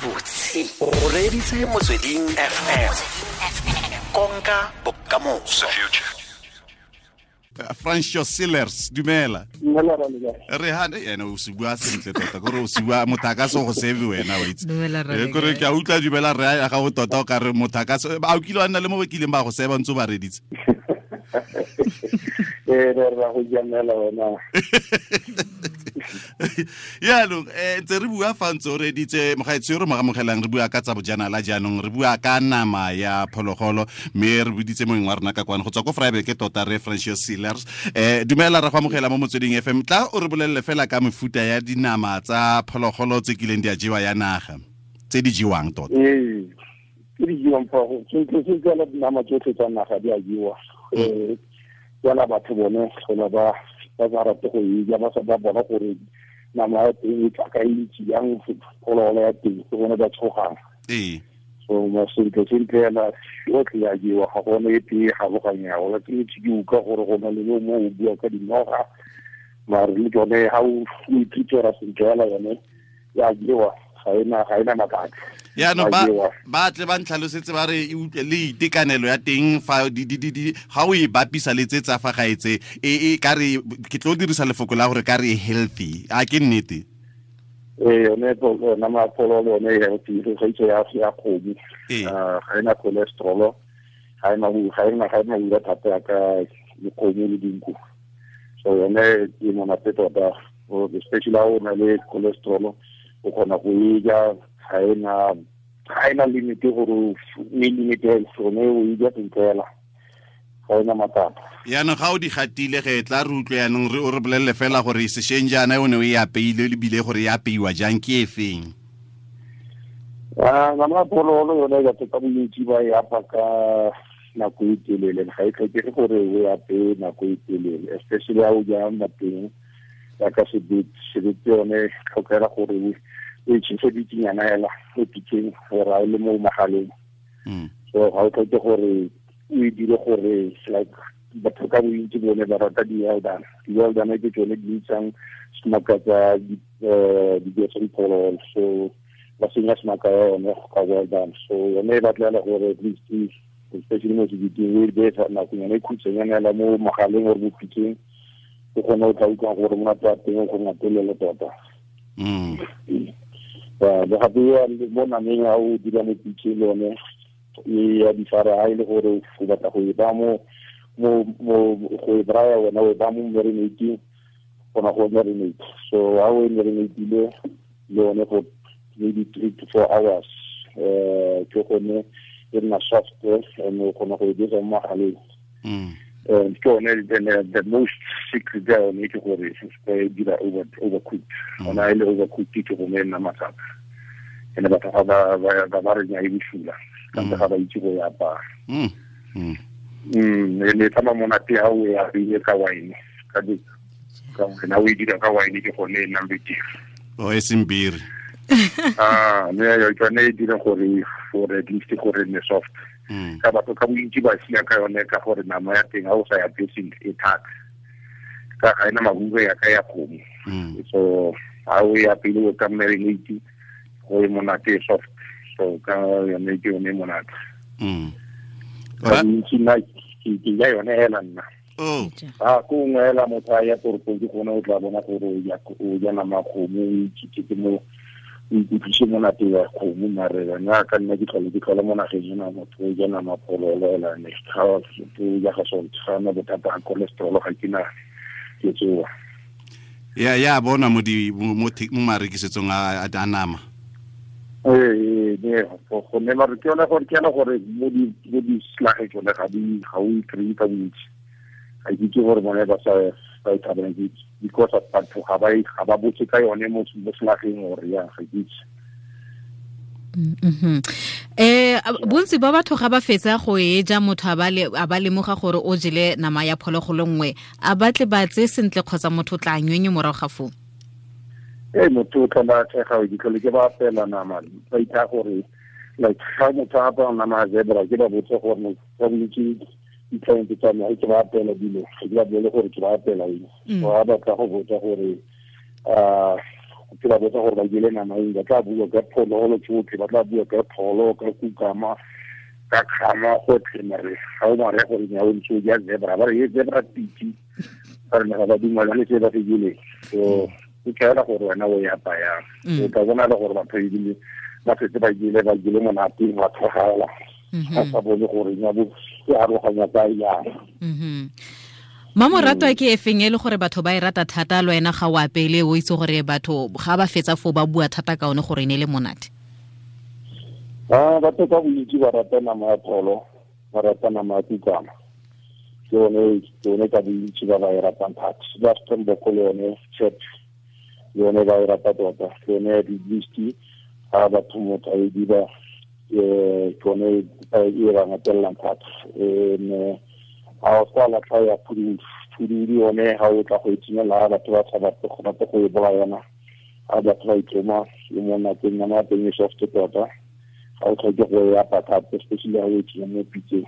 Gabotse o reeditse Motsweding FM, konka bokamoso. Francio Sillers, dumela. Re ha ene o se bua sentle tota, kore o se bua motho a ka se go save wena, wa itse. Kore ke a utlwa dumela re ya gago tota, o ka re motho a ka se a o kile wa nna le mo ba kileng ba go seba ntse o ba reditse. Ee, re ra go jamela wena. Yaanong ntse re bua fa ntse o reditse mogaetsho yo re mo amogelang, re bua ka tsa bojanala jaanong, re bua ka nama ya phologolo, mme re boditse moeng wa rona ka kwano go tswa ko Vryburg tota, re Francio Sillers. Dumela, re go amogela mo Motsweding FM. Tla o re bolelele fela ka mefuta ya dinama tsa phologolo tse kileng di a jewa ya naga, tse di jewang tota. Ee, tse di jewang fa go sentle sentle, dinama tsotlhe tsa naga di a jewa. Fela batho bone tlhola ba sa rate go e ja, ba sa ba bona gore nama ya teng e tla ka e ntsi jang, phologolo ya teng, ke bone ba tshogang. So ma sentle sentle yana yotlhe ya jewa, ga gone e tee galoganyago. La ke ntse ke utlwa gore go na le yo mo o bua ka dinoga, mare le tsone ga o ithutela sentle fela yone ya jewa, ga ena mabaka. Yaanong ba tle ba ntlhalosetse ba re e utlwe le itekanelo ya teng fa di di di di ga o e bapisa le tse tsa fa gaetse, e ka re ke tlo dirisa lefoko la gore ka re e healthy, a ke nnete? Ee, yone nama ya phologolo yone e healthy go gaisa ya kgomo. Ga ena cholesterol, ga ena ura thata yaka dikgomo le dinku, so yone e monate tota, especially ha o na le cholesterol, o kgona go e ja. Ga ena limit gore o e limit yone, o e ja sentle fela, ga ena matsapa. Yaanong ga o di gatile ge, tla re utlwe yaanong re o re bolelele fela gore sešweng jaana o ne o e apeile ebile gore e apeiwa jang, ke e feng? Ah, nama ya phologolo yone batho ka bontsi ba e apa ka nako e telele. Ga e tlhokege gore o e apeye nako e telele, especially ha o ja mateng yaka sebete. Sebete yone tlhokega gore o e tšhese bikinyana hela mo pitseng gore a e le mo magaleng. So ga o tlhoke gore o e dire gore like batho ka bontsi bone ba rata di-well done. Di-well done ke tsone di itsang semaka tsa dijo tsa diphologolo, so ba senya semaka ya yone ka well done. So yone e batlela gore at least, especially mo sebeteng, o e beye nakonyana e khutshwanyana hela mo magaleng or mo pitseng, o kgone o tla utlwang gore monate wa teng o go ngatelele tota. Le gape mo nameng, ha o dira mo pitseng, le yone e ya difara. Ha e le gore o batla go e ba mo go e braya, wena o e ba mo marinating, gona go marinate. So ha o e marinatile le yone for maybe 3 to 4 hours, ke gone e nna soft and o kgona go e dira mo magaleng. And ke yone the most secret ya yone ke gore se e dira overcooked. Ona e le overcooked, ke gone e nna matsapa, ene batho ga ba re nya e bosula, kante ga ba itse go e apaya. E ne tsamaya monate ha o e apeile ka wine, ka wine. Ha o e dira ka wine, ke gone e nnang betere. O e seng biri? Ah, ne yo tsone e dira gore for at least gore ne soft. Ka batho ka bontsi ba sia ka yone ka gore nama ya teng ha o sa ya sentle e thata, ka ga ena mahube ya ka ya kgomo. So ha o ya pele o ka marinate go e monate, e soft, so ka yone ke yone e monate. Ka bontsi nna ke ja yone hela nna. A ko nngwe hela motho a ya toropong, ke gone o tla bona gore o ja nama ya kgomo, o ithutetse mo, o ikutlwise monate wa kgomo. Mare wena ka nna ke tlhole mo nageng ena, motho o ja nama phololo hela ne ga o ja ga salt, ga na bothata ga cholesterol, ga ke na ke tsoa. Ya bona mo di mo mo mo marekisetsong a nama. Ee, ne go ne mare ke yone gore ke yone gore mo di slage tsone ga o e kry-e ka bontsi. Ga ke itse gore bone ba sa ba e thabelang ke because of batho ga ba botse ka yone mo slageng or ya, ga ke itse. Bontsi ba batho ga ba fetsa go e ja, motho a ba lemoga gore o jele nama ya phologolo nngwe, a batle ba tse sentle kgotsa motho o tla nywenye morago ga foo? Ee, motho o tlhola tshega, ke tlhole ke ba apela nama, ba itha gore like ga motho a apara nama ya zebra, ke ba botse gore ka bontsi di-client tsa me, ga ke ba apela dilo, ga ke ba bolele gore ke ba apela eng. So ga batla go botsa gore um Ke ba botsa gore ba jele nama eng, ba tla bua ka phologolo tsotlhe, ba tla bua ka pholo, ka kukama, ka kgama, gotlhe. Mare ga o mare gore nya o ntse o ja zebra, ba re e zebra piti, ba re ga ba dumalane se ba se jeleng. So o tlhaela gore wena o e apayang, o tla bona le gore batho ebile ba setse ba jele monate, ba tlhogela, ba sa bone gore nya bo e aroganya ka yang. Mamoratwa ke efeng e le gore batho ba e rata thata, le wena ga o apele o itse gore batho ga ba fetsa foo ba bua thata ka one gore e ne le monate? Batho ka bontsi ba rata nama ya pholo, ba rata nama ya kukama, ke yone ka bontsi ba ba e ratang thata. Ba Springbok le yone chep, le yone ba e rata tota, ke yone ya di-beast, ga batho motho a e dira, ke yone e ba ngatellang thata. A o sa latlha ya phududu yone, ga o tla go e tsenya, batho ba sa batle go rata go e bolaya yona, ga batho ba itloma e monate, nama ya teng e soft tota, ga o tlhoke go e apa thata, especially ga o e tsenya mo pitseng,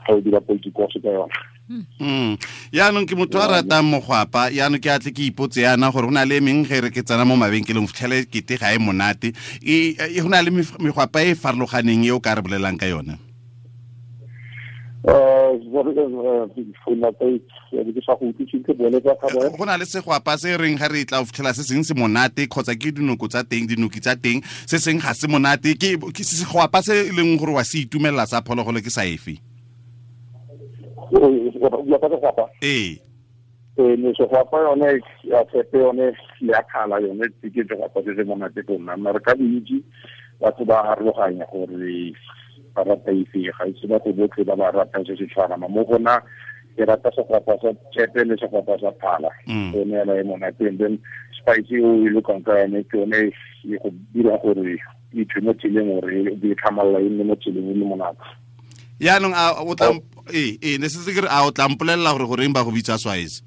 ga o dira politikose ka yona. Yaanong ke motho a ratang mogwapa, yaanong ke atle ke ipotse yana gore go na le meng ge re ke tsena mo mabenkeleng fitlhele kete ga e monate, go na le megwapa e farologaneng e o ka re bolelang ka yone? Go na le segwapa se reng ga re tla o fitlhela se seng se monate, kgotsa ke dinoko tsa teng, dinoki tsa teng, se seng ga se monate, ke segwapa se e leng gore wa se itumelela sa phologolo ke sa efe? Ee. Segwapa yone ya tshepe yone ya kgala yone ke segwapa se se monate go nna, mare ka bontsi batho ba harologanya gore ba rata efe, ga itse batho botlhe ba ba ratang se se tshwana. Mo go nna ke rata segwapa sa tshepe le segwapa sa phala, yone ela e monate. And then spice o e lokang ka yone ke yone e go dira gore e thwe mo tseleng, gore e tlhamalla e nne mo tseleng e le monate. Yaanong a o tla ne se ke re a o tla mpolelela gore goreng ba go bitsa Swazi?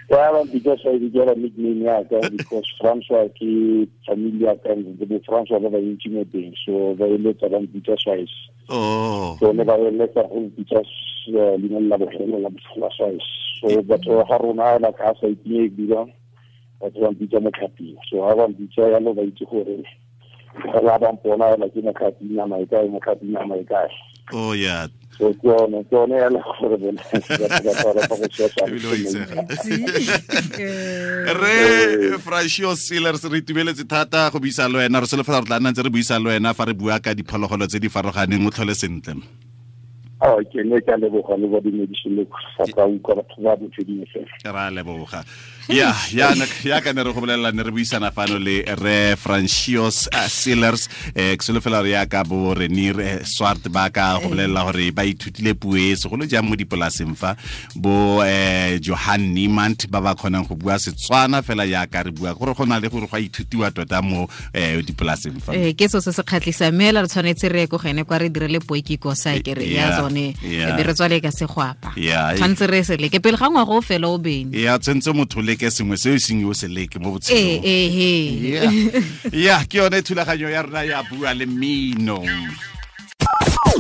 Ya ba bitsa Swazi ke yona nickname ya ka, because Francois ke family ya ka, bo Francois ba bantsi mo teng, so ba eletsa ba mpitsa Swazi. So ne ba eletsa go mpitsa leina la bogelo la Swazi. So batho ga rona la ka sa itinye dira, batho ba mpitsa motlhaping. So ha ba mpitsa yalo ba itse gore ga ba mpona la ke motlhaping nama e kae, motlhaping nama e kae. Oh yeah. So ke yone ya le gore bone ba rata go tshwetsa. Re Francois Sealers, re itumeletse thata go buisa le wena, re solofela re tla nna ntse re buisa le wena fa re bua ka diphologolo tse di farologaneng. O tlhole sentle. Ke ne ke a leboga le ba dumedise le sa ka utlwa batho ba Motsweding FM. Ra leboga. Ya ka ne re go bolelela, ne re buisana fano le re Francois Sealers, ke solofela re ya ka bo Renier Swart ba ka go bolelela gore ba ithutile puo e segolo jang mo dipolaseng fa, bo Johan Niemand ba ba kgonang go bua Setswana fela yaka re bua, gore go na le gore go a ithutiwa tota mo dipolaseng fa. Ke so se se kgatlhisang, mme re tshwanetse re ye ko gene kwa re direle poikiko sa ke re ya tsone, be re tswale ka segwapa. Tshwanetse re se leke pele ga ngwaga o fela o bene. Ya tshwanetse motho leke sengwe se o seng o se leke mo botshelong. Ya ke yone thulaganyo ya rona ya bua le mmino.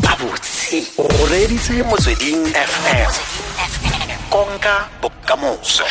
Abotse o reditse Motsweding FM. Konka bokamoso.